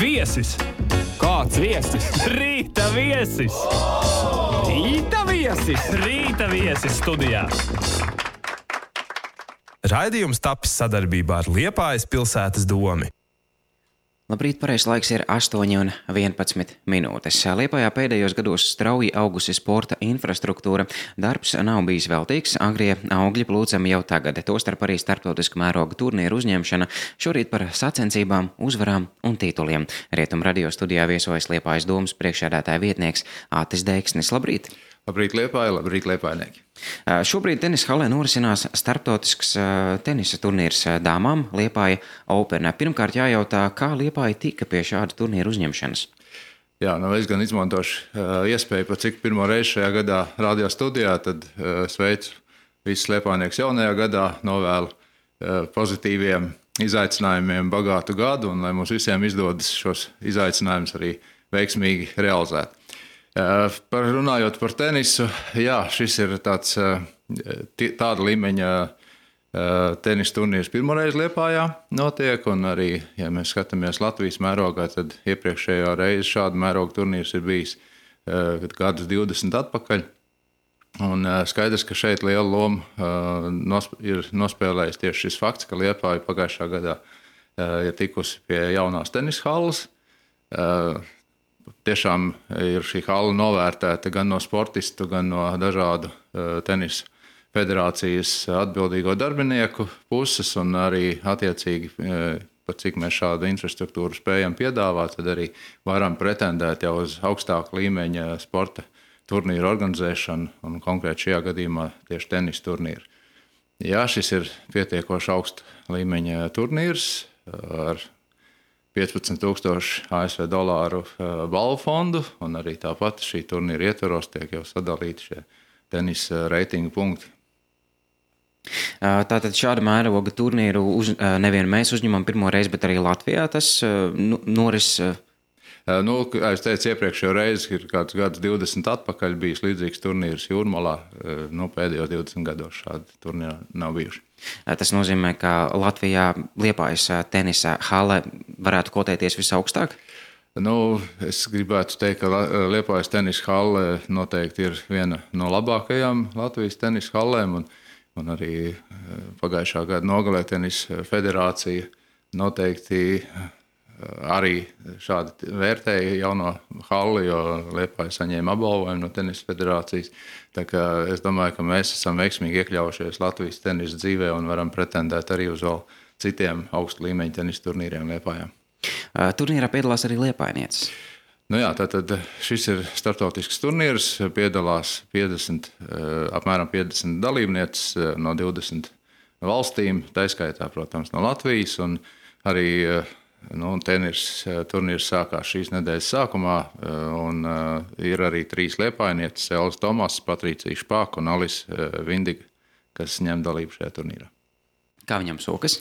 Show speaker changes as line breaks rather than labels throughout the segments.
Viesis!
Kāds viesis?
Rīta viesis!
Rīta viesis!
Rīta viesis studijā!
Raidījums tapis sadarbībā ar Liepājas pilsētas domi.
Labrīt, pareizais laiks ir 8:11 minūtes. Liepājā pēdējos gados strauji augusi sporta infrastruktūra. Darbs nav bijis veltīgs, agrie augļi plūcami jau tagad, tostarp arī starptautiska mēroga turnīru uzņemšana, šorīt par sacensībām, uzvarām un tituliem. Rietum radio studijā viesojas Liepājas domas priekšsēdētāja vietnieks Ātis Deiksnis. Labrīt!
Labrīt, Liepāja, labrīt, liepājnieki!
Šobrīd tenisa halē norisinās starptautisks tenisa turnīrs dāmām Liepāja Open. Pirmkārt jājautā, kā Liepāja tika pie šāda turnīra uzņemšanas?
Jā, es gan izmantošu iespēju, pat cik pirmo reizi šajā gadā radio studijā, tad sveicu visus liepājniekus jaunajā gadā, novēlu pozitīviem izaicinājumiem bagātu gadu un lai mums visiem izdodas šos izaicinājumus arī veiksmīgi realizēt. Runājot par tenisu, jā, šis ir tāda līmeņa tenisa turnīrs pirmoreiz Liepājā notiek, un arī, ja mēs skatāmies Latvijas mērogā, tad iepriekšējā reize šāda mēroga turnīrs ir bijis gadus 20 atpakaļ. Un skaidrs, ka šeit liela loma ir nospēlējis tieši šis fakts, ka Liepāja pagājušā gadā ir tikusi pie jaunās tenisa halles. Tiešām ir šī hala novērtēta gan no sportistu, gan no dažādu tenisa federācijas atbildīgo darbinieku puses, un arī attiecīgi, pat cik mēs šādu infrastruktūru spējam piedāvāt, tad arī varam pretendēt jau uz augstāku līmeņa sporta turnīru organizēšanu, un konkrēti šajā gadījumā tieši tenisa turnīru. Jā, šis ir pietiekoši augsta līmeņa turnīrs ar 15,000 ASV dolāru balvu fondu, un arī tāpat šī turnīra ietvaros tiek jau sadalīti šie tenisa reitingu punkti.
Tātad šāda mēroga turnīru nevien mēs uzņemam pirmo reizi, bet arī Latvijā tas noris.
Kā es teicu, iepriekšējo reizi ir kāds gads 20 atpakaļ bijis līdzīgs turnīrs Jūrmalā. Pēdējos 20 gados šādi turnīri nav bijuši.
Tas nozīmē, ka Latvijā Liepājas tenisa hale varētu kotēties visaugstāk?
Es gribētu teikt, ka Liepājas tenisa hale noteikti ir viena no labākajām Latvijas tenisa halēm, un arī pagājušā gada nogalē tenisa federācija noteikti arī šādi vērtēja jauno halli, jo Liepāja saņēma apbalvojumu no tenisa federācijas. Tā kā es domāju, ka mēs esam veiksmīgi iekļaujušies Latvijas tenisa dzīvē un varam pretendēt arī uz vēl citiem augstu līmeņu tenisa turnīriem Liepājā.
Turnīrā piedalās arī liepājnieces.
Tātad šis ir starptautisks turnīrs, piedalās apmēram 50 dalībnieces no 20 valstīm, taiskaitā, protams, no Latvijas, un arī turnīrs sākās šīs nedēļas sākumā, un ir arī 3 liepājnieces, Elza Tomas, Patricija Špāka un Alis Vindiga, kas ņem dalību šajā turnīrā.
Kā viņam sokas?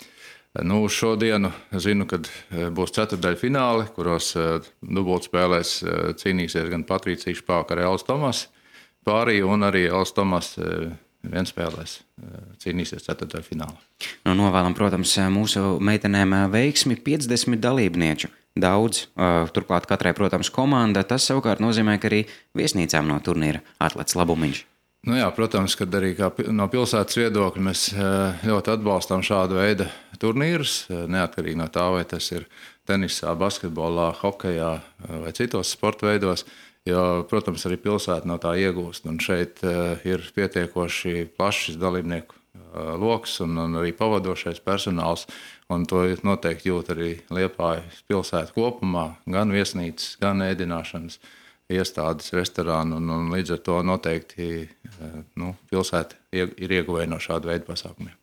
Šodienu zinu, kad būs ceturtdaļfināli, kuros dubultspēlēs cīnīsies gan Patricija Špāka ar Elza Tomas pārī, un arī Elza Tomas vienspēlēs cīnīsies ceturtdaļfinālā.
Novēlam, protams, mūsu meitenēm veiksmi 50 dalībnieču. Daudz, turklāt katrai, protams, komanda. Tas savukārt nozīmē, ka arī viesnīcām no turnīra atlec labumiņš.
Protams, kad arī no pilsētas viedokļa mēs ļoti atbalstām šādu veidu turnīrus, neatkarīgi no tā, vai tas ir tenisā, basketbolā, hokejā vai citos sporta veidos. Jo, protams, arī pilsēta no tā iegūst, un šeit ir pietiekoši plašs dalībnieku loks un arī pavadošais personāls, un to noteikti jūt arī Liepājas pilsēta kopumā, gan viesnīcas, gan ēdināšanas iestādes, restorānu, un līdz ar to noteikti pilsēta ir ieguvēja no šāda veida pasākumiem.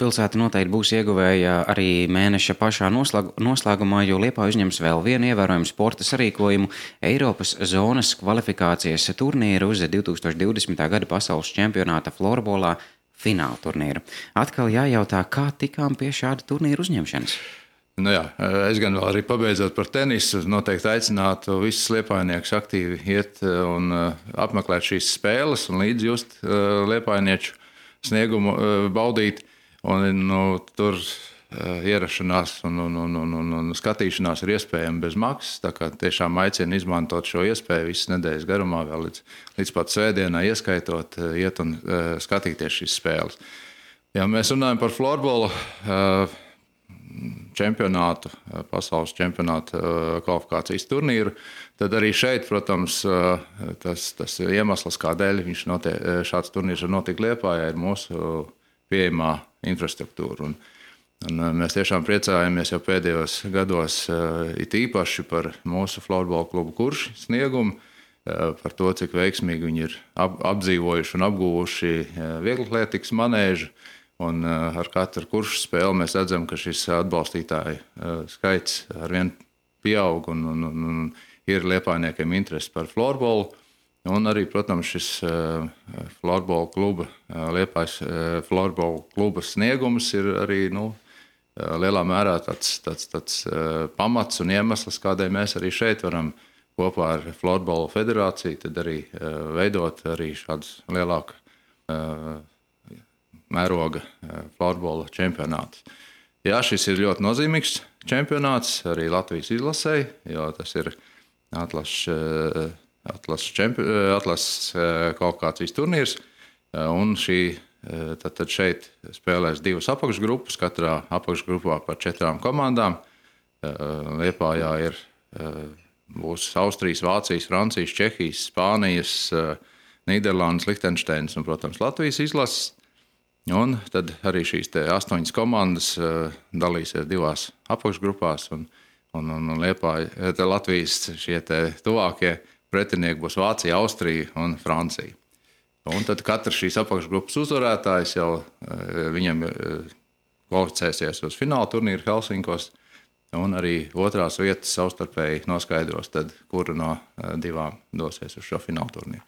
Pilsēta noteikti būs ieguvēja arī mēneša pašā noslēgumā, jo Liepāja uzņems vēl vienu ievērojumu sporta sarīkojumu Eiropas zonas kvalifikācijas turnīru uz 2020. gada pasaules čempionāta florbolā fināla turnīru. Atkal jājautā, kā tikām pie šāda turnīra uzņemšanas?
Es gan vēl arī pabeidzot par tenisu, noteikti aicinātu visus liepājniekus aktīvi iet un apmeklēt šīs spēles un līdz just liepājnieču sniegumu baudīt. Un, tur ierašanās un skatīšanās ir iespējama bez maksas. Tā kā tiešām aicinu izmantot šo iespēju visas nedēļas garumā, vēl līdz pat svētdienai ieskaitot, iet un skatīties šīs spēles. Ja mēs runājam par florbola čempionātu, pasaules čempionātu kvalifikācijas turnīru, tad arī šeit, protams, tas iemesls, kādēļ šāds turnīrs var notikt Liepājā, ir mūsu pieejamā infrastruktūra. Un mēs tiešām priecājamies jau pēdējos gados it īpaši par mūsu florbola klubu Kurši sniegumu, par to, cik veiksmīgi viņi ir apdzīvojuši un apguvuši vieglatlētikas manēžu. Un ar katru kuršu spēli mēs redzam, ka šis atbalstītāju skaits arvien pieaug un ir liepājniekiem interesi par florbolu. Un arī, protams, šis florbola kluba, Liepājas florbola kluba sniegums ir arī lielā mērā tāds pamats un iemesls, kādēļ mēs arī šeit varam kopā ar Florbola federāciju tad arī veidot arī šādus lielāku mēroga florbola čempionātus. Jā, šis ir ļoti nozīmīgs čempionāts arī Latvijas izlasei, jo tas ir atlases kvalifikācijas turnīrs. Un tad šeit spēlēs divas apakšgrupas, katrā apakšgrupā par 4 komandām. Liepājā būs Austrijas, Vācijas, Francijas, Čehijas, Spānijas, Nīderlandes, Lihtenšteinas un, protams, Latvijas izlases. Un tad arī šīs 8 komandas dalīsies 2 apakšgrupās un Latvijas šie tuvākie pretinieki būs Vācija, Austrija un Francija. Un tad katrs šīs apakšgrupas uzvarētājs jau viņam kvalificēsies uz fināla turnīru Helsinkos un arī otrās vietas savstarpēji noskaidros, tad kura no 2 dosies uz šo fināla turnīru.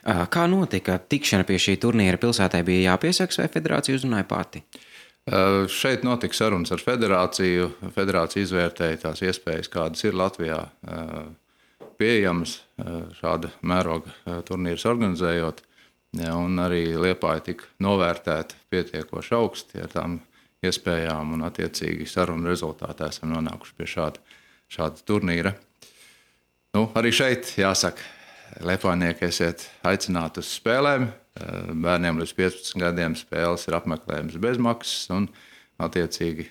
Kā notika tikšana pie šī turnīra? Pilsētai bija jāpiesaks vai federācija uzrunāja pati?
Šeit notika sarunas ar federāciju. Federācija izvērtēja tās iespējas, kādas ir Latvijā pieejamas šāda mēroga turnīrs organizējot. Un arī Liepāja tika novērtēta pietiekoši augsti ar tām iespējām un attiecīgi sarunu rezultātā esam nonākuši pie šāda turnīra. Arī šeit jāsaka, liepājnieki esiet aicināti uz spēlēm. Bērniem līdz 15 gadiem spēles ir apmeklējums bez maksas un attiecīgi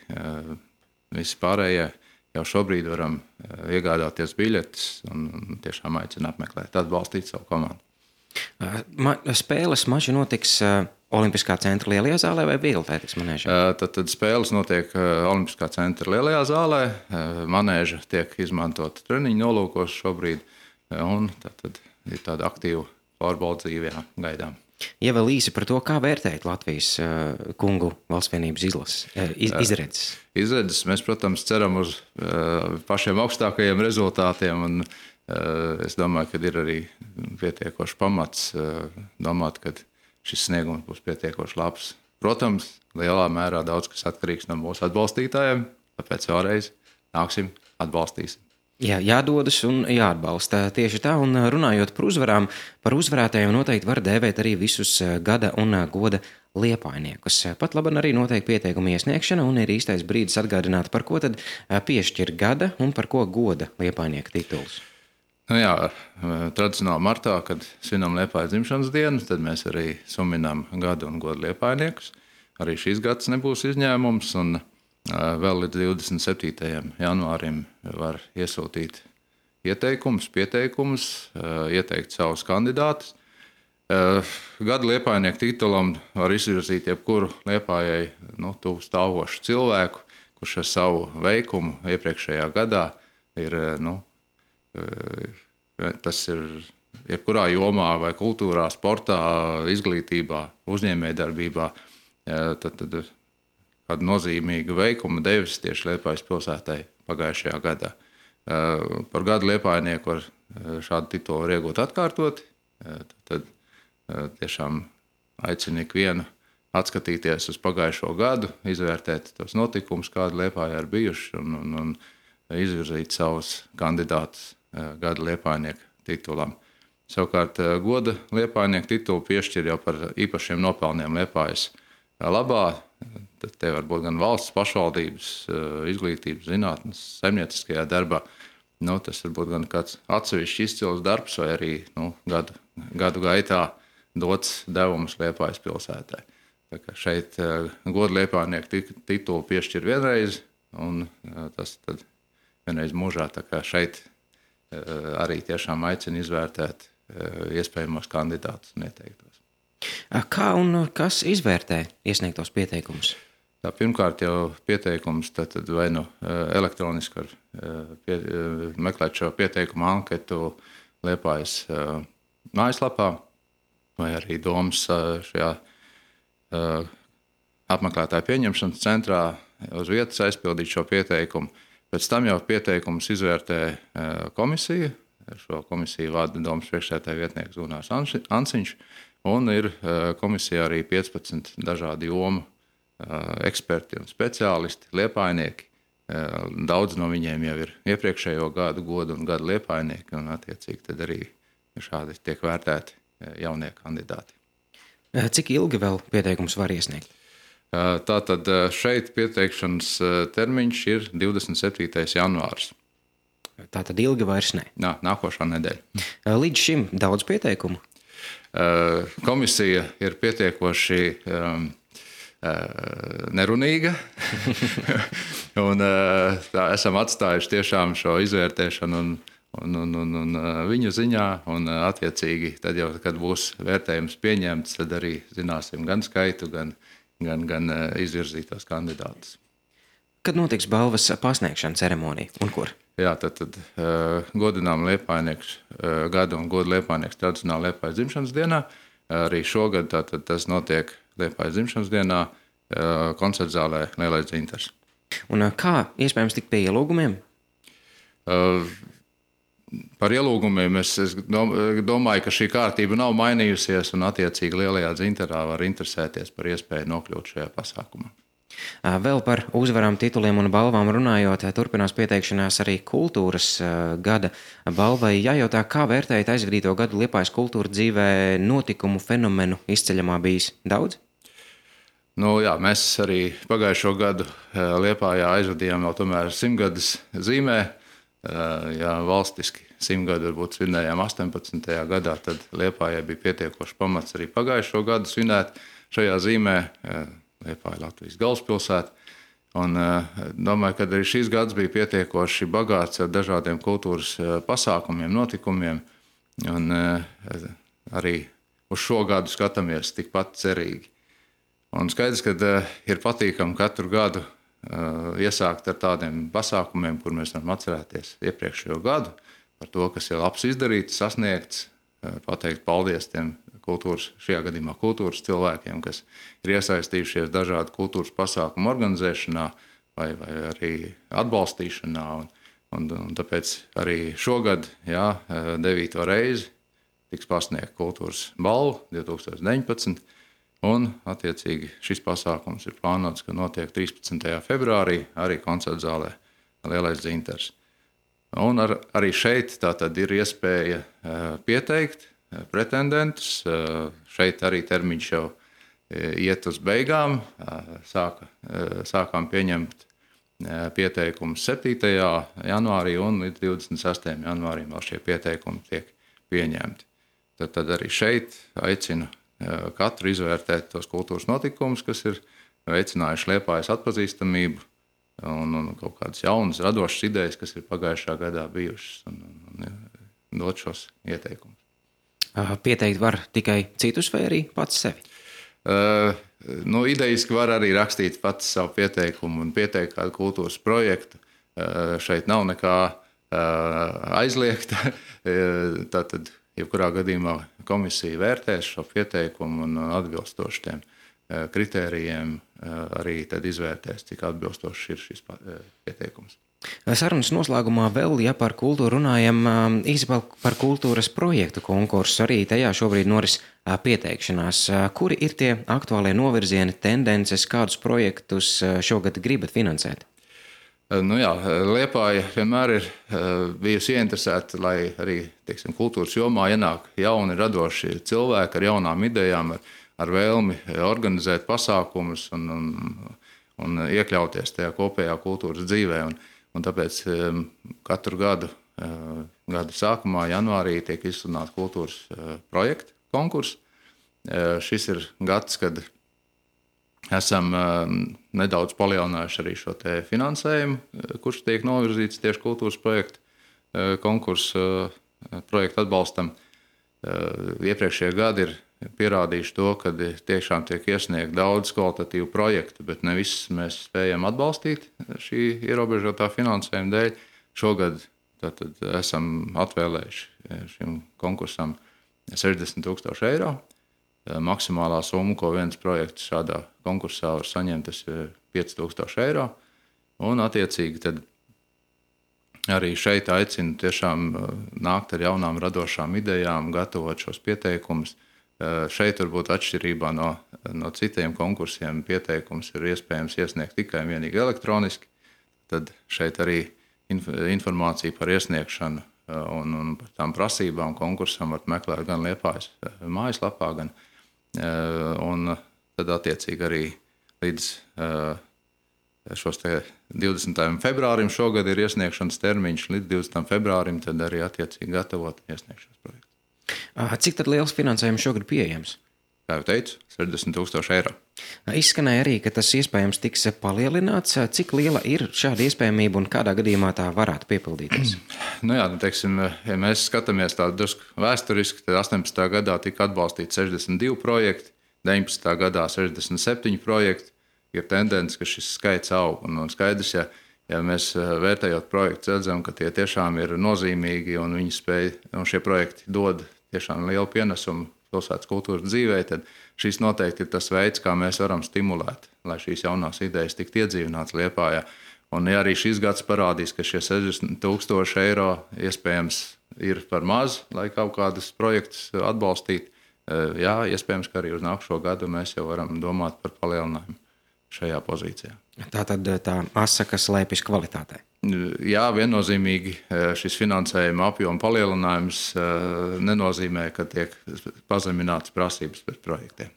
visi pārējie jau šobrīd varam iegādāties biļetes un tiešām aicina apmeklēt, atbalstīt savu komandu.
Spēles mači notiks Olimpiskā centra lielajā zālē vai vieglatlētikas manēžā?
Tad spēles notiek Olimpiskā centra lielajā zālē. Manēža tiek izmantota treniņu nolūkos šobrīd un tad ir tāda aktīva florbola dzīvē gaidām.
Ja vēl īsi par to, kā vērtēt Latvijas kungu valstsvienības izredzes?
Izredzes mēs, protams, ceram uz pašiem augstākajiem rezultātiem un es domāju, ka ir arī pietiekoši pamats domāt, ka šis sniegums būs pietiekoši labs. Protams, lielā mērā daudz kas atkarīgs no mūsu atbalstītājiem, tāpēc vēlreiz nāksim, atbalstīsim.
Jā, jādodas un jāatbalsta. Tieši tā, un runājot par uzvarām, par uzvarētājiem noteikti var dēvēt arī visus gada un goda liepājniekus. Pat labi arī notiek pieteikuma iesniegšana un ir īstais brīdis atgādināt, par ko tad piešķir gada un par ko goda liepājnieka tituls.
Tradicionāli martā, kad svinam Liepājas dzimšanas dienu, tad mēs arī suminām gada un goda liepājniekus. Arī šīs gads nebūs izņēmums un vēl līdz 27. janvārim var iesūtīt pieteikumus, ieteikt savus kandidātus. Gada liepājnieku titulam var izvirzīt jebkuru Liepājai tuvu stāvošu cilvēku, kurš ar savu veikumu iepriekšējā gadā ir, tas ir jebkurā jomā vai kultūrā, sportā, izglītībā, uzņēmējdarbībā, tad kādu nozīmīgu veikumu devis tieši Liepājas pilsētai pagājušajā gadā. Par gadu liepājnieku var šādu titulu iegūt atkārtoti. Tad tiešām aicinu ikvienu atskatīties uz pagājušo gadu, izvērtēt tos notikumus, kādi Liepājā ir bijuši un izvirzīt savus kandidātus gada liepājnieku titulam. Savukārt goda liepājnieku titulu piešķir jau par īpašiem nopelniem Liepājas labā. te var būt gan valsts pašvaldības, izglītības, zinātnes, saimnieciskajā darbā. Tas var būt gan kāds atsevišķs izcils darbs vai arī gadu gaitā dots devums Liepājas pilsētai. Tā kā šeit godu liepājnieku titulu piešķir vienreiz, un tas tad vienreiz mūžā. Tā kā šeit arī tiešām aicina izvērtēt iespējamos kandidātus un ieteiktos.
Kā un kas izvērtē iesniegtos pieteikumus?
Pirmkārt jau pieteikums tad vai elektroniski var meklēt šo pieteikumu anketu Liepājas mājaslapā, vai arī domas šajā apmeklētāju pieņemšanas centrā uz vietas aizpildīt šo pieteikumu. Pēc tam jau pieteikumus izvērtē komisija. Šo komisiju vada domas priekšsēdētāja vietnieks Gunārs Anciņš, un ir komisijā arī 15 dažādu jomu eksperti un speciālisti, liepājnieki. Daudz no viņiem jau ir iepriekšējo gadu godu un gadu liepājnieki, un attiecīgi tad arī šādi tiek vērtēti jaunie kandidāti.
Cik ilgi vēl pieteikums var iesniegt?
Tātad šeit pieteikšanas termiņš ir 27. janvārs.
Tātad ilgi vairs ne.
Nākošā nedēļa.
Līdz šim daudz pieteikumu?
Komisija ir pietiekoši nerunīga, un esam atstājuši tiešām šo izvērtēšanu un viņu ziņā, un attiecīgi tad jau, kad būs vērtējums pieņemts, tad arī zināsim gan skaitu, gan izvirzītos kandidātus.
Kad notiks balvas pasniegšana ceremonija un kur?
Jā, tad godinām liepājnieks gada un godu liepājnieks tradicionāli Liepājas dzimšanas dienā. Arī šogad tas notiek Liepājas dzimšanas dienā koncertzālē Lielais Dzintars.
Un kā iespējams tikt pie ielūgumiem?
Par ielūgumiem es domāju, ka šī kārtība nav mainījusies, un attiecīgi Lielajā Dzintarā var interesēties par iespēju nokļūt šajā pasākumā.
Vēl par uzvarām, tituliem un balvām runājot, turpinās pieteikšanās arī kultūras gada balvai. Jājautā, kā vērtējat aizvadīto gadu Liepājas kultūra dzīvē notikumu fenomenu izceļamā bijis daudz?
Jā, mēs arī pagājušo gadu Liepājā aizvadījām vēl tomēr 100-gadas zīmē. Ja valstiski 100 gadu varbūt svinējām 18. gadā, tad Liepājai bija pietiekoši pamats arī pagājušo gadu svinēt šajā zīmē. Liepāja Latvijas galvaspilsēta. Un domāju, ka arī šīs gads bija pietiekoši bagāts ar dažādiem kultūras pasākumiem, notikumiem. Un arī uz šo gadu skatāmies tikpat cerīgi. Un skaidrs, ka ir patīkami katru gadu iesākt ar tādiem pasākumiem, kur mēs varam atcerēties iepriekšējo gadu, par to, kas ir labs izdarīts, sasniegts, pateikt paldies tiem šajā gadījumā kultūras cilvēkiem, kas ir iesaistījušies dažādu kultūras pasākumu organizēšanā vai arī atbalstīšanā. Un tāpēc arī šogad, 9. reizi, tiks pasniegta kultūras balva 2019. Un, attiecīgi, šis pasākums ir plānots, ka notiek 13. februārī arī koncertzālē Lielais Dzintars. Un arī šeit tātad ir iespēja pieteikt pretendentus. Šeit arī termiņš jau iet uz beigām. Sākām pieņemt pieteikumus 7. janvārī un līdz 26. janvārim vēl šie pieteikumi tiek pieņemti. Tad arī šeit aicinu katru izvērtēt tos kultūras notikumus, kas ir veicinājuši Liepājas atpazīstamību un kaut kādas jaunas, radošas idejas, kas ir pagājušā gadā bijušas, un dot šos ieteikumus.
Pieteikt var tikai citus vai arī pats sevi?
Idejiski var arī rakstīt pats savu pieteikumu un pieteikt kādu kultūras projektu. Šeit nav nekā aizliegta. Tātad, jebkurā gadījumā komisija vērtēs šo pieteikumu un atbilstoši tiem kritērijiem arī tad izvērtēs, cik atbilstošs ir šis pieteikums.
Sarunas noslēgumā vēl, ja par kultūru runājam, īsi par kultūras projektu konkursu. Arī tajā šobrīd noris pieteikšanās. Kuri ir tie aktuālie novirzieni, tendences, kādus projektus šogad gribat finansēt?
Liepāja vienmēr ir bijusi ieinteresēta, lai arī kultūras jomā ienāk jauni, radoši cilvēki ar jaunām idejām, ar vēlmi organizēt pasākumus un un iekļauties tajā kopējā kultūras dzīvē. Un tāpēc katru gadu sākumā, janvārī, tiek izsludināta kultūras projekta konkurss. Šis ir gads, kad esam nedaudz palielinājuši arī šo te finansējumu, kurš tiek novirzīts tieši kultūras projekta konkursu projektu atbalstam. Iepriekšējie gadi ir pierādījuši to, ka tiešām tiek iesniegt daudz kvalitatīvu projektu, bet ne visus mēs spējam atbalstīt šī ierobežotā finansējuma dēļ. Šogad tātad esam atvēlējuši šim konkursam 60,000 eiro. Maksimālā summa, ko viens projekts šādā konkursā var saņemt, tas ir 5,000 eiro. Un attiecīgi tad arī šeit aicinu tiešām nākt ar jaunām radošām idejām, gatavot šos pieteikumus. Šeit varbūt atšķirībā no citiem konkursiem pieteikums ir iespējams iesniegt tikai un vienīgi elektroniski. Tad šeit arī informācija par iesniegšanu un par tām prasībām konkursam var meklēt gan Liepājas mājaslapā, un tad attiecīgi arī līdz šos 20. februārim šogad ir iesniegšanas termiņš, līdz 20. februārim tad arī attiecīgi gatavot iesniegšanas projektu.
Cik tad liels finansējums šogad pieejams?
Kā jau teicu, 60,000 eiro.
Izskanēja arī, ka tas iespējams tiks palielināts. Cik liela ir šāda iespējamība un kādā gadījumā tā varētu piepildīties?
Teiksim, ja mēs skatāmies tādu drusku vēsturiski, tad 18. gadā tika atbalstīti 62 projekti, 19. gadā 67 projekti. Ir tendence, ka šis skaits aug. Un skaidrs, ja mēs vērtējot projektus, redzam, ka tie tiešām ir nozīmīgi un šie projekti dod tiešām lielu pienesumu pilsētas kultūras dzīvē, tad šis noteikti ir tas veids, kā mēs varam stimulēt, lai šīs jaunās idejas tiktu iedzīvinātas Liepājā. Un ja arī šis gads parādīs, ka šie 60,000 eiro iespējams ir par maz, lai kaut kādus projektus atbalstītu, iespējams, ka arī uz nākušo gadu mēs jau varam domāt par palielinājumu šajā pozīcijā.
Tātad tā asa, kas slēpjas kvalitātē.
Jā, viennozīmīgi šis finansējuma apjoma palielinājums nenozīmē, ka tiek pazeminātas prasības pret projektiem.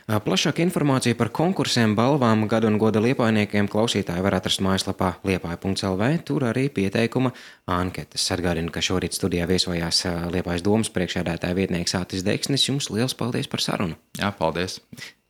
Plašāka informācija par konkursiem, balvām, gadu un goda liepājniekiem klausītāji var atrast mājaslapā liepāja.lv. Tur arī pieteikuma anketas. Atgādinu, ka šorīt studijā viesojās Liepājas domas priekšsēdētāja vietnieks Ātis Deksnis. Jums liels paldies par sarunu.
Jā, paldies.